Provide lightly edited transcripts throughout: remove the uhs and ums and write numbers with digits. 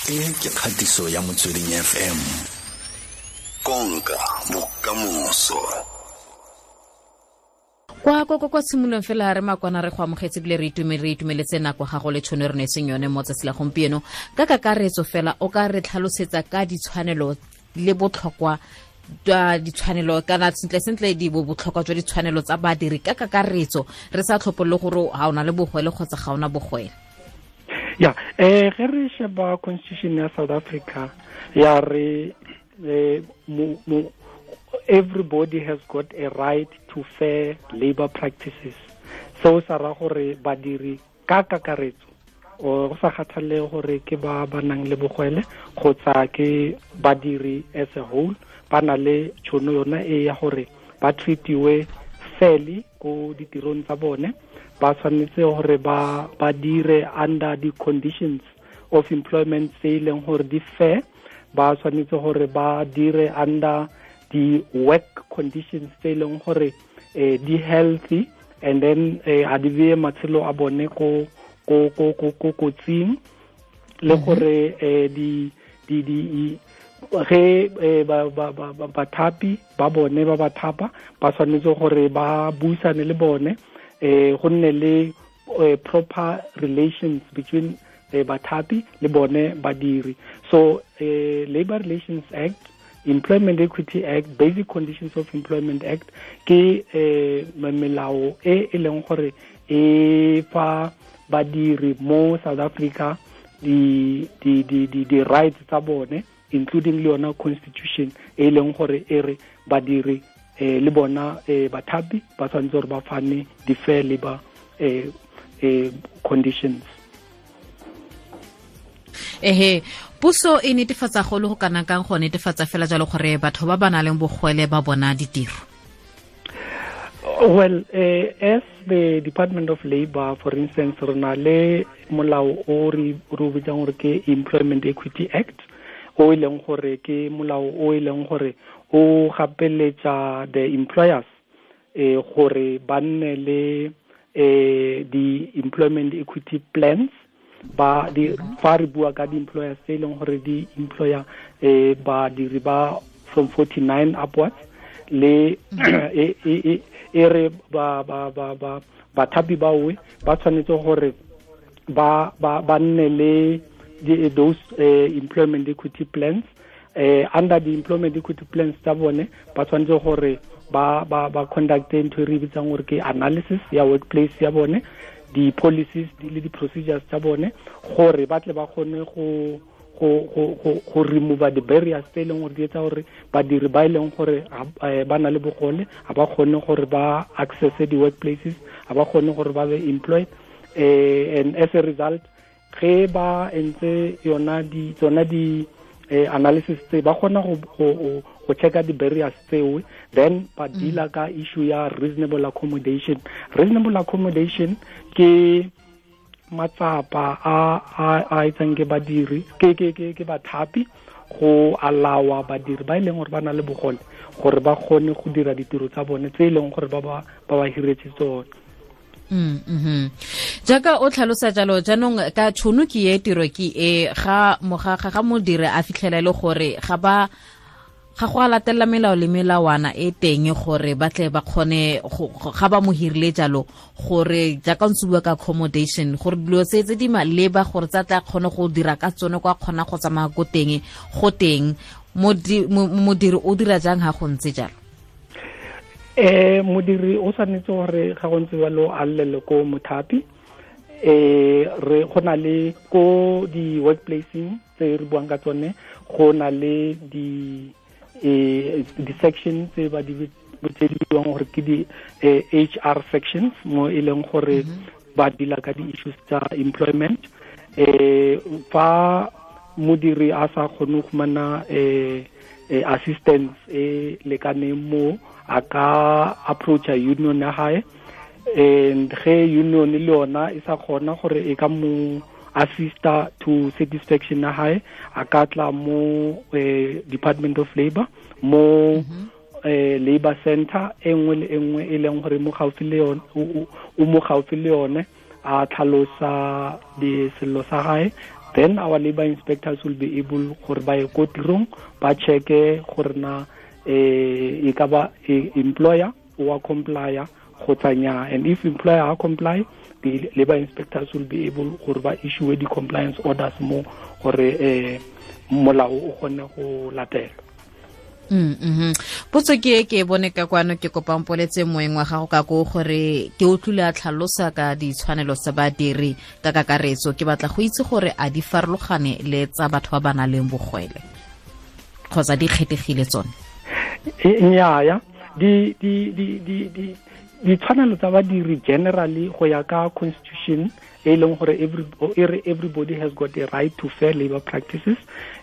E ke kgatiso ya Motsweding FM. Konka bokamoso. Kwa tshimolong fela re makwana re go amogetse bile re itumeletse nako gago le tšhono re neetseng yone mo tsatsi la gompieno. Ka kakaretso fela o ka re tlhalosetsa ka ditshwanelo le botlhokwa jwa ditshwanelo kana sentle sentle di botlhokwa jwa ditshwanelo tsa badiri ka kakaretso, re sa tlhopolole gore ga ona le bogwele kgotsa ga ona bogwele. Ya, ge re sheba constitution ya South Africa ya re everybody has got a right to fair labor practices. So sa ra gore badiri ka kakaretso o go sa kgathalele gore ke ba ba nang le bogwele kgotsa ke badiri as a whole, ba na le tšhono yona e ya gore ba treatiwe fairly ko ditirong tsa bone. Ba tshwanetse gore ba dire under the conditions of employment tse e leng gore di fair, ba tshwanetse gore ba dire under the work conditions tse e leng gore di healthy, and then a di beye matshelo a bone ko kotsing, le gore di ge bathapi ba bone ba ba thapa ba tshwanetse gore ba buisane le bone, go nne le proper relations between bathapi le bone badiri. So Labor Relations Act, Employment Equity Act, Basic Conditions of Employment Act ke melao e e leng gore e fa badiri mo South Africa di rights tsa bone, including le yona constitution e leng gore e re badiri le bona bathapi ba tshwanetse gore ba fane di fair labor conditions. Ehe, puso e netefatsa go le go kana kang go netefatsa fela jalo gore batho ba ba nang le bogwele ba bona ditiro? Well, as the Department of Labor, for instance, re na le molao o re o bitsang gore ke Employment Equity Act, o e leng gore ke molao o e leng gore o gapeletsa the employers gore ba nne le di employment equity plans. Ba di fa re bua ka di-employers tse e leng gore di employer badiri ba from 49 upwards, le e re ba bathapi bawe ba tshwanetse gore ba nne le those employment equity plans. Under the employment equity plans tsa bone ba tshwanetse gore ba conduct ntho e re bitsang gore ke analysis ya workplace ya bone, di-policies le di-procedures tsa bone, gore ba tle ba kgone go remove the barriers tse e leng gore di etsa gore badiri ba e leng gore ba na le bogole ga ba kgone gore ba access di-workplaces, ga ba kgone gore ba be employed, and as a result ge ba entse yona di tsona di analysis tse ba kgona go checka di-barriers tseo, then ba deala ka issue ya reasonable accommodation. Reasonable accommodation ke matsapa a etsang ke badiri ke bathapi go allowa badiri ba e leng gore ba na le bogole gore ba kgone go dira ditiro tsa bone tse e leng gore ba ba hiretse tsone. Jaaka o tlhalosa jalo jaanong ka tšhono ke e tiro ke e ga ga modiri a fitlhela e le gore ga go a latela melao le melawana e teng gore ba tle ba kgone ga ba mo hirile jalo, gore jaaka ntse bua ka accommodation gore dilo tse di maleba gore tsa tla kgone go dira ka tsone kwa kgona go tsamaya ko teng go teng, modiri o dira jang ga go ntse jalo? Modiri o tshwanetse gore ga go ntse jalo a llele ko mothapi. Re go na le ko di-workplaceng tse re buang ka tsone, go na le di section tse ba di tse di buang gore ke di HR sections, mo e leng gore ba deala ka di-issues tsa employment. Fa modiri a sa kgone go fumana assistance e lekaneng mo, a ka approacha union ya hae, and ge union le yona e sa kgona gore e ka mo assista to satisfaction ya hae, a ka tla mo Department of Labor, mo labor center e nngwe le e nngwe e leng gore mo gaufi le yone, o mo gaufi le yone, a tlhalosa di sello sa hae, Then our labor inspectors will be able gore ba ye ko tirong ba checke gore na e ka ba employer o a complya kgotsa nnyaa. And if employer a comply, the labor inspectors will be able gore ba issue di-compliance orders mo gore molao o kgone go latelwa. Potso ke e ke bone ka kwano, ke kopang poletse moeng wa gago ka ko gore ke utlwile a tlhalosa ka ditshwanelo tsa badiri ka kakaretso. Ke batla go itse gore a di farologane le tsa batho ba ba nang le bogwele kgotsa di kgethegile tsone? Nnyaa, di di di di di ditshwanelo tsa badiri generally go ya ka constitution e leng gore everybody has got a right to fair labor practices,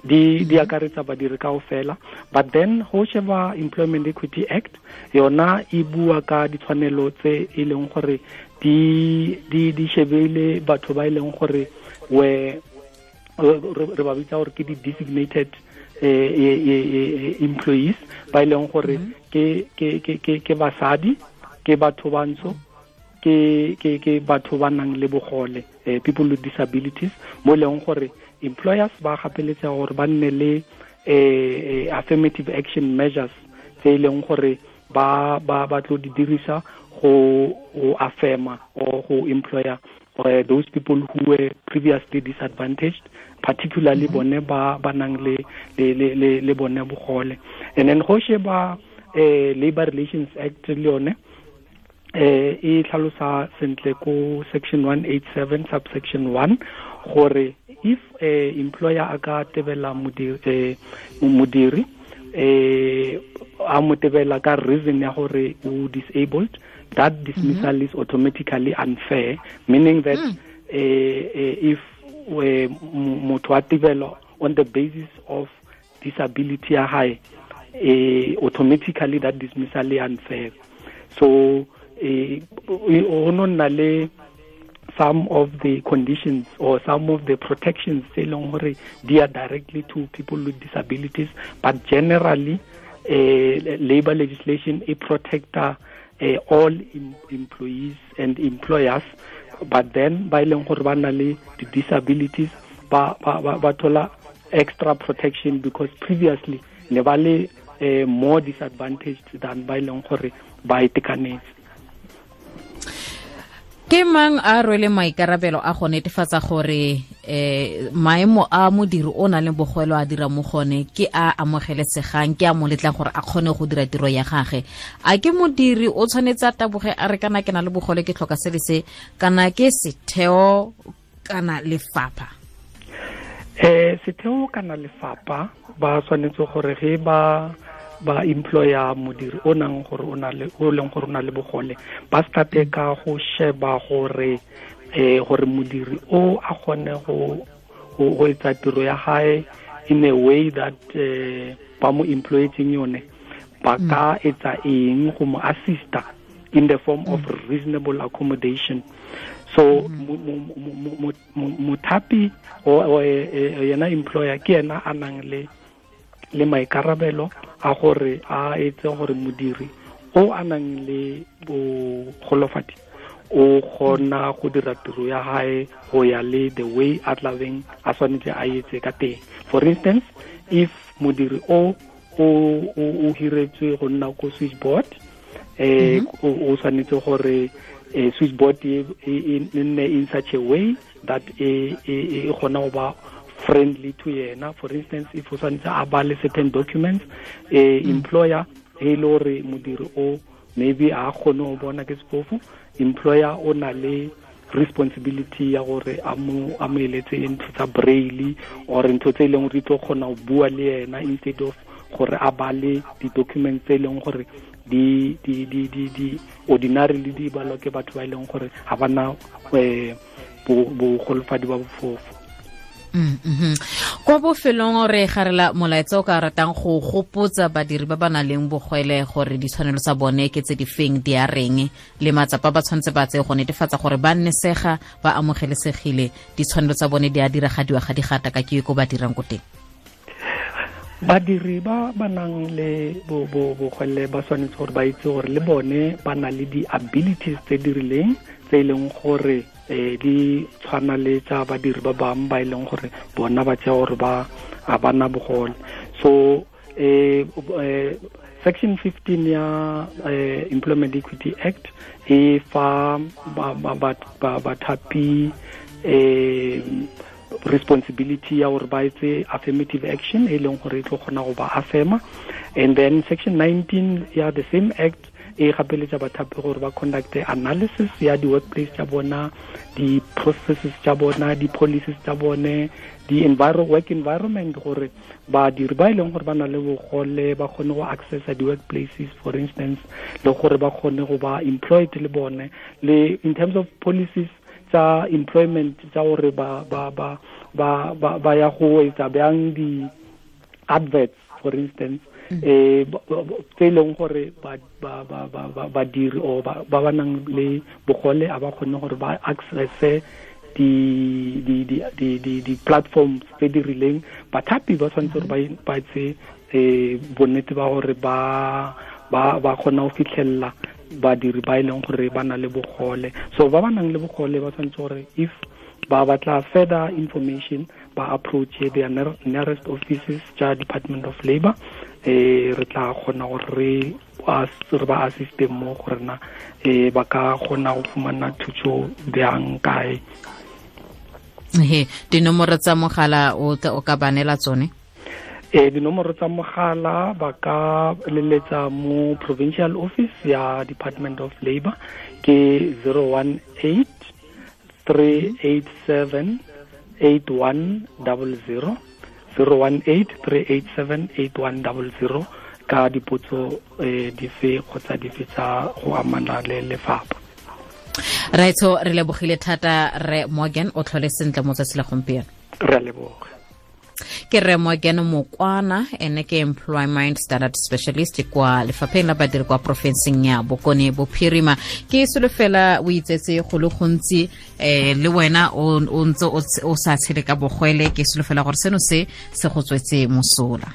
di akaretsa badiri kaofela. But then go sheba Employment Equity Act yona e bua ka ditshwanelo tse e leng gore di di di shebile batho ba e leng gore we re ba bitsa gore ke di designated employees, ba e leng gore ke ke ke ke basadi, ke batho bantsho, ke ke ke batho ba nang le bogole, people with disabilities, mo leng gore employers ba gapeletsa gore ba nne le affirmative action measures tse e leng gore ba ba ba tlo di dirisa go affirma or go employer those people who were previously disadvantaged, particularly bone ba ba nang le le le le bone bogole. And then go sheba Labor Relations Act le yone e tlhalosa sentle ko section 187 subsection 1 gore if employer a ka tebela modiri a mo tebela ka reason ya gore o disabled, that dismissal is automatically unfair, meaning that if motho a tebelwa on the basis of disability ya hae, automatically that dismissal is unfair. So o nna le some of the conditions or some of the protections tse leng gore di are directly to people with disabilities, but generally labor legislation e protecta all employees and employers, but then ba e leng gore ba na le the disabilities ba ba ba thola extra protection because previously ne ba le more disadvantaged than ba e leng gore ba itekanetse. Ke mang a rwele maikarabelo a go netefatsa gore maemo a modiri o nang le bogwelo a dira mo gone ke a amogelesegang, ke a mo letlang gore a kgone go dira tiro ya gagwe? A ke modiri o tshwanetse a taboge a re kana ke na le bogole ke tlhoka se le se, kana ke setheo kana lefapha? Setheo kana lefapha ba tshwanetse gore ge ba ba employer modiri o nang gore o na le o leng gore o na le bogole, ba starte ka go sheba gore gore modiri o a kgone go go etsa tiro ya hae in a way that ba mo employetseng yone, ba ka etsa eng go mo assista in the form of reasonable accommodation. So mothapi o yena employer ke yena a nang le maikarabelo a gore a etse gore modiri o a nang le bogolofadi o kgona go dira tiro ya hae go ya le the way a tlabeng a tshwanetse a etse ka teng. For instance, if modiri o o hiretswe go nna ko switchboard, o tshwanetse gore switchboard e nne in such a way that e kgona go ba friendly to yena. For instance, if o tshwanetse a bale certain documents, employer e le gore modiri o maybe a kgone go bona ke sefofu, employer o na le responsibility ya gore a mo eletse ntho tsa braille or ntho tse e leng gore di tlo kgona go bua le yena instead of gore a bale di-documents tse e leng gore di di di di di ordinarily di balwa ke batho ba e leng gore ga bana bogolofadi ba bofofu. Kwa bofelong re garela molaetsa o ka ratang go gopotsa badiri ba ba nang le bogwele gore ditshwanelo tsa bone ke tse di feng, di a reng, le matsapa ba tshwanetse ba tseye go netefatsa gore ba nnesega, ba amogelesegile, ditshwanelo tsa bone di a diragadiwa ga di gata ka ke ko ba dirang ko teng? Badiri ba ba nang le bogwele ba tshwanetse gore ba itse gore le bone ba na le di-abilities tse di rileng tse e leng gore di tshwana le tsa badiri ba bangwe ba e leng gore bona ba tšea gore ba a bana bogole. So section 15 ya Employment Equity Act e fa bathapi responsibility ya gore ba etse affirmative action e leng gore e tlo kgona go ba affirma. And then section 19 ya the same act e gapeletsa bathapi gore ba conduct analysis ya di-workplace tsa bona, di-processes tsa bona, di-policies tsa bone, di-work environment, gore badiri ba e leng gore ba na le bogole ba kgone go accessa di-workplaces, for instance, le gore ba kgone go ba employed le bone, le in terms of policies tsa employment tsa gore ba ya go etsa bjang di-adverts, for instance, tse e leng gore badiri or ba ba nang le bogole a ba kgone gore ba accesse di platforms tse di rileng. Bathapi ba tshwanetse gore ba etse bonnete ba gore ba kgona go fitlhelela badiri ba e leng gore ba na le bogole. So ba ba nang le bogole ba tshwanetse gore if ba batla further information ba approach their nearest offices tsa Department of Labor. Re tla kgona gore re ba assiste mo gore na ba ka kgona go fumana thuso bjang kae. He, dinomoro tsa mogala o ka ba neela tsone? Dinomoro tsa mogala ba ka leletsa mo provincial office ya Department of Labor ke 018 387 8100, 018 387 8100 ka dipotso dife kgotsa dife tsa go amana le lefapha. Raitso, re lebogile thata re Morgan, o tlhole sentle mo tsatsi la gompieno. Re a leboga. Ke re Morgan Mokwana, ene ke Employment Standard Specialist kwa lefapheng la badiri kwa porofenseng ya Bokone Bophirima. Ke solofela o itsetse go le gontsi, le wena o ntse o sa tshele ka bogwele. Ke solofela gore seno se se go tswetse mosola.